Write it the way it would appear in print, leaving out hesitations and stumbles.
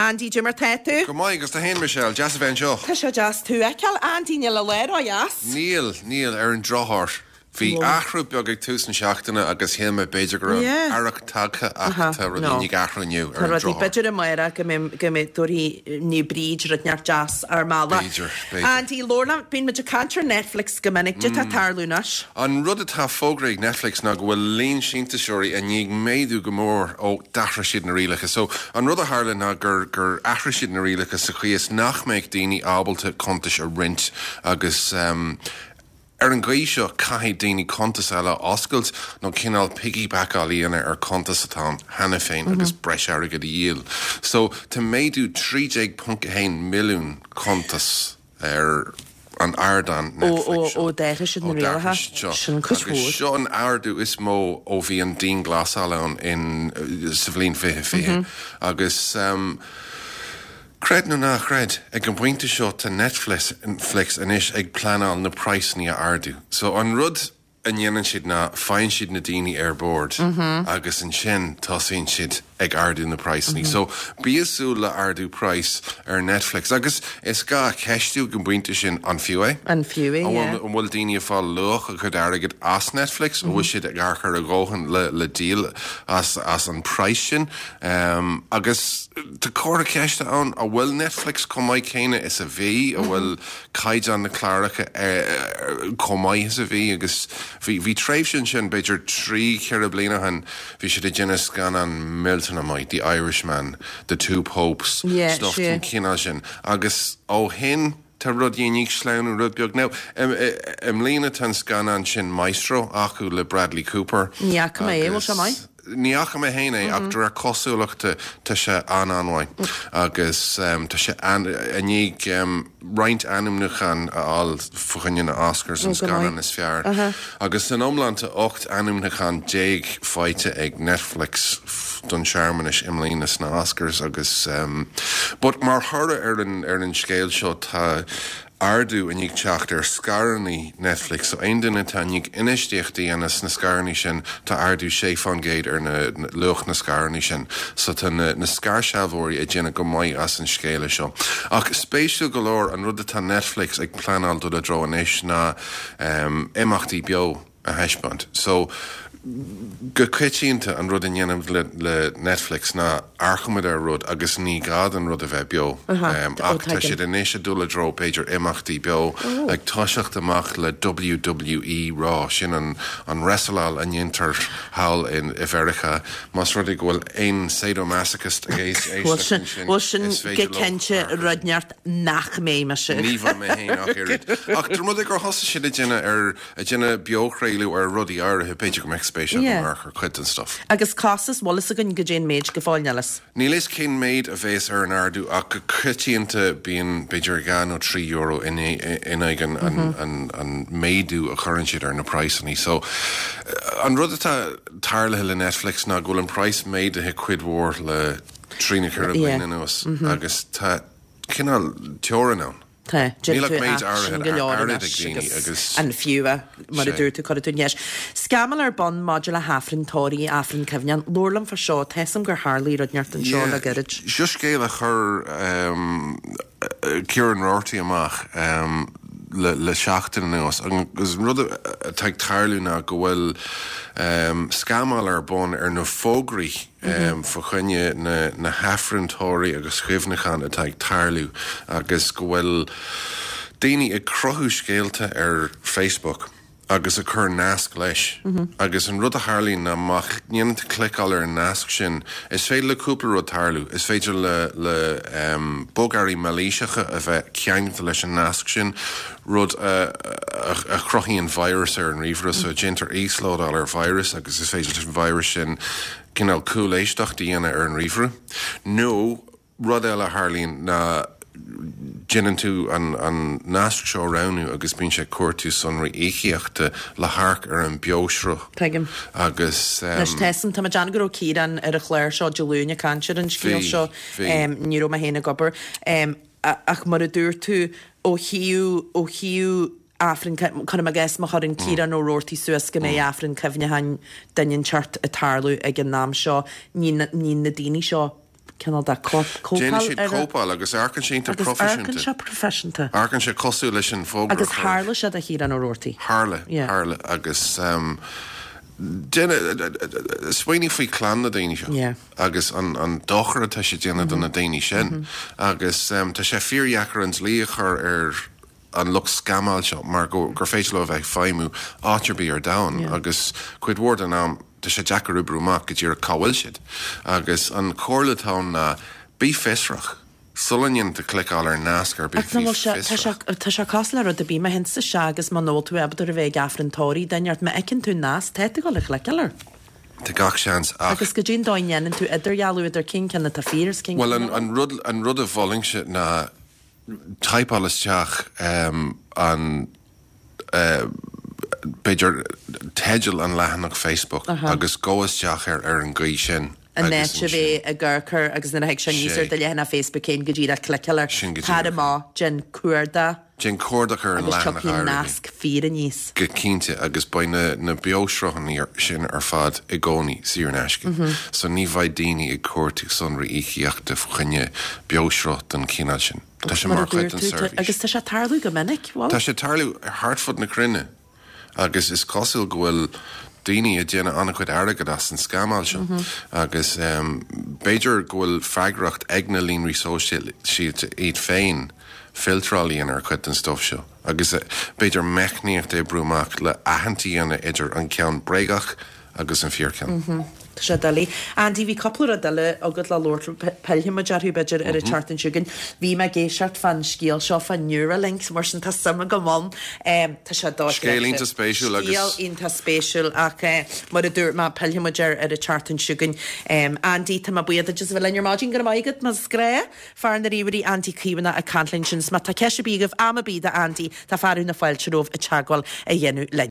Andy, Cad é mar tá tú? Go maith, agus tú fhéin Michelle, deas a bheith anseo. Tá sé deas tú a fheiceáil, Andy, níl an lá ródheas. Níl, níl, ar an drochuair. Bhí athrú beag ag tús na seachtaine agus shíl mé b'fhéidir go raibh earrach tagtha ach tá rudaí i ndiaidh athrú inniu, ar an drochuair. B'fhéidir amárach go mbeidh, go mbeidh, tabharfaidh Naomh Bríd rud inteacht deas ár mbealach. B'fhéidir, b'fhéidir. Andy, labhair liom, bíonn muid ag caint ar Netflix go minic, cad é atá ag tarlú anois? An rud atá fógraithe ag Netflix ná go bhfuil líon síntiúsóirí i ndiaidh méadú go mór ó d'athraigh siad na rialacha. So, an rud a tharla ná gur, gur athraigh siad na rialacha sa chaoi is nach mbeadh daoine ábalta cuntais a roinnt agus, Ar an gcaoi seo, caithfidh daoine cuntas eile a oscailt nó cineál piggybackáil a dhéanamh ar cuntas atá ann cheana féin agus breis airgid a dhíol. So, tá méadú 13.1 milliún cuntas ar an ardán Netflix seo. Ó d'athraigh siad na rialacha. Sin cuid mhór. Agus seo an ardú is mó ó bhí an dianghlasáil ann in sa bhliain 2020. Agus. Creid nó ná creid, ag an bpointe seo tá Netflix anois ag pleanáil na praghsanna a ardú. So an rud a ndéanann siad ná faigheann siad na daoine ar bord agus ansin tosaíonn siad ag ardú na praghsanna. So bí ag súil le ardú praghas ar Netflix. Agus is gá a cheistiú ag an bpointe sin, an fiú é? An fiú é, yeah. An bhfuil daoine ag fáil luach a gcuid airgid as Netflix? An bhfuil siad ag amharc ar a dhóthain le díol as an praghas sin? Agus tá comhartha ceiste ann, an bhfuil Netflix chomh maith céanna is a bhí? An bhfuil caighdeán na cláracha chomh maith is a bhí? Agus bhí, bhí tréimhse ansin, b'fhéidir trí, cheithre bliana ó shin, bhí siad ag déanamh scannán millteanach maith, The Irishman, The Two Popes, stuff den chineál sin. Agus ó shin, Tá rudaí i ndiaidh sleamhnú rud beag. Now, i mbliana tá an scannán sin Maestro acu le Bradley Cooper. Ní fhaca mé é, bhfuil sé maith? Ní fhaca mé féin é ach de réir cosúlachta tá sé an-an-mhaith agus tá sé i ndiaidh roinnt ainmniúchán a fháil fá choinne na Oscars, an scannán is fearr. Agus san iomlán tá 18 ainmniúchán faighte ag Netflix don searmanas i mbliana sna Oscars agus but mar thoradh ar an ar an scéal seo tá ardú i ndiaidh teacht ar scaireanna Netflix so aon duine atá i ndiaidh infheistíocht a dhéanamh sna scaireanna sin tá ardú 6% ar na luach na scaireanna sin so tá na na scairshealbhóirí ag déanamh go maith as an scéala seo. Ach spéisiúil go leor an rud atá Netflix ag pleanáil dul i dtreo anois ná imeachtaí beo a thaispeáint. So, go coitianta an rud a ndéanaimid le le Netflix ná amharcaimid ar rud agus ní gá don rud a bheith beo. Ach tá siad anois ag dul i dtreo b'fhéidir imeachtaí beo, ag toiseacht amach le WWE Raw, sin an an wrestleáil a ndéantar thall i Mheiriceá. Más rud é go bhfuil aon sadomasochist ag éisteacht ansin, Bhuel sin is go féidir leo cinnte amharc. rud inteacht nach mbeidh mise. Ní bheidh mé féin ach oiread. Ach de rud é gur thosaigh siad ag déanamh ar, ag déanamh beochraoladh ar rudaí áirithe, b'fhéidir go mbeadh spéis agam amharc ar chuid den stuff. Agus costas, bhfuil fhios againn goidé an méid go fóill, níl fhios. Níl fhios cén méid a bhéas ar an ardú ach go coitianta bíonn b'fhéidir €2 nó €3 in aghaidh an, an, an, an méadú a chuireann siad ar na praghsanna. So, an rud atá tarlaithe le Netflix ná go bhfuil an praghas méadaithe cuid mhór le trí nó ceithre bliana anuas agus tá cineál teorainn ann. Tá. Níl ach méid áirithe airgid ag daoine agus. An fiú é, mar a dúirt tú, cuirfidh tú an cheist. Scamall ar bun maidir le hAifreann tórraimh, Aifreann Cuimhneacháin. Labhair liom fá seo, tá 'fhios a'm gur tharlaigh rud inteacht anseo le gairid. Seo scéal a chuir Ciarán Roarty amach le seachtain anuas agus an rud atá ag tarlú ná go bhfuil scamall ar bun ar na fógraí fá choinne na hAifrinn tórraimh agus chuimhneacháin atá ag tarlú agus go bhfuil daoine ag cruthú scéalta ar Facebook agus ag cur nasc leis agus an rud a tharlaíonn ná má dhéanann tú cliceáil ar an nasc sin is féidir le cúpla rud tarlú, is féidir le le bogearraí mailíseacha a bheith ceangailte leis an nasc sin, rud a a chruthaíonn virus ar an ríomhaire so déantar íoslódáil ar virus agus is féidir leis an virus sin cineál cúléisteacht a dhéanamh ar an ríomhaire nó rud eile a tharlaíonn ná déanann tú an an nasc seo a roghnú agus bíonn sé ag cuartú sonraí íocaíochta le hamharc ar an beoshruth Tuigim. agus. Anois tá 'fhios a'm, tá mé ag déanamh go raibh Ciarán ar an chlár seo Dé Luain ag caint ar an scéal seo. Bhí, bhí. Ní raibh mé féin ag obair. Ach mar a dúirt tú, ó thaobh, ó thaobh Aifreann, cuirim i gcás má chuireann Ciarán Ó Roarty suas go mbeidh Aifreann Cuimhneacháin duine inteacht ag tarlú ag an am seo, ní, ní na daoine seo. cineál de cóipeáil Déanann siad cóipeáil agus amharcann sé iontach proifisiúnta. Agus amharcann sé proifisiúnta. Amharcann sé cosúil leis an bhfógra a Agus tharla sé do Chiarán Ó Roarty. Tharla, tharla agus smaoinigh faoi chlann na daoine seo agus an dochar atá sé ag déanamh do na daoine sin agus tá sé fíordheacair an dlí a chur ar an lucht scamáil seo mar gur féidir leo a bheith ag feidhmiú áit ar bith ar domhan agus cuid mhór den am tá sé deacair oibriú amach go díreach cá bhfuil siad. Agus an chomhairle atá ann ná bí fiosrach. Sula ndéanann tú cliceáil ar nasc ar bith, bí fiosrach. Tá sé cosúil le rud ar bith, má théann tú isteach agus muna bhfuil tú ábalta a bheith ag Aifreann tórraimh duine ort, má fheiceann tú nasc, tá tú ag dul a chliceáil air. Tá gach seans ach. Agus goidé an dóigh a ndéanann tú idirdhealú idir cén ceann atá fíor is cén ceann nach bhfuil? Bhuel, an rud a mholfainnse ná typeáil isteach an, b'fhéidir, teideal an leathanach Facebook agus gabh isteach air ar an gcaoi sin An áit a bheith ag amharc air agus nuair a thig sé aníos ar do leathanach Facebook féin go díreach cliceáil air. Sin go díreach. Tar amach, déan cuardach. Déan cuardach ar an leathanach áirithe. Agus tiocfaidh nasc fíor aníos. Go cinnte, agus beidh na na beoshruthanna sin ar fad i gcónaí saor in aisce. So ní bheidh daoine ag cuartú sonraí íocaíochta faoi choinne beoshruth den chineál sin. Tá sé mar chuid den seirbhís. Agus tá sé ag tarlú go minic, bhfuil? Tá sé ag tarlú thart fud na cruinne agus is cosúil go bhfuil daoine ag déanamh an-chuid airgid as an scamáil seo agus b'fhéidir go bhfuil freagracht ag na líonraí sóisialta iad féin filtráil a dhéanamh ar chuid den stuif seo agus b'fhéidir meicníocht a oibriú amach le aithint a dhéanamh idir an ceann bréagach agus an fíorcheann. Tá sé doiligh. Andy, bhí cúpla rud eile agat le labhairt, pillfidh muid orthu b'fhéidir ar an tseachtain seo chugainn. Bhí mé ag éisteacht fán scéal seo fá Neuralink, mar sin tá suim agam ann. Tá sé dochreidte. Scéal iontach spéisiúil agus. Scéal iontach spéisiúil ach mar a dúirt mé, pillfidh muid air ar an tseachtain seo chugainn. Andy, tá mé buíoch duit as a bheith linn ar maidin, go raibh maith agat, mar is gnách. Fear na ríomhairí Andy Caomhánach ag caint linn sin. 'S má tá ceist ar bith agaibh, am ar bith do Andy, tá fearadh na fáilte romhaibh teagmháil a dhéanamh linn.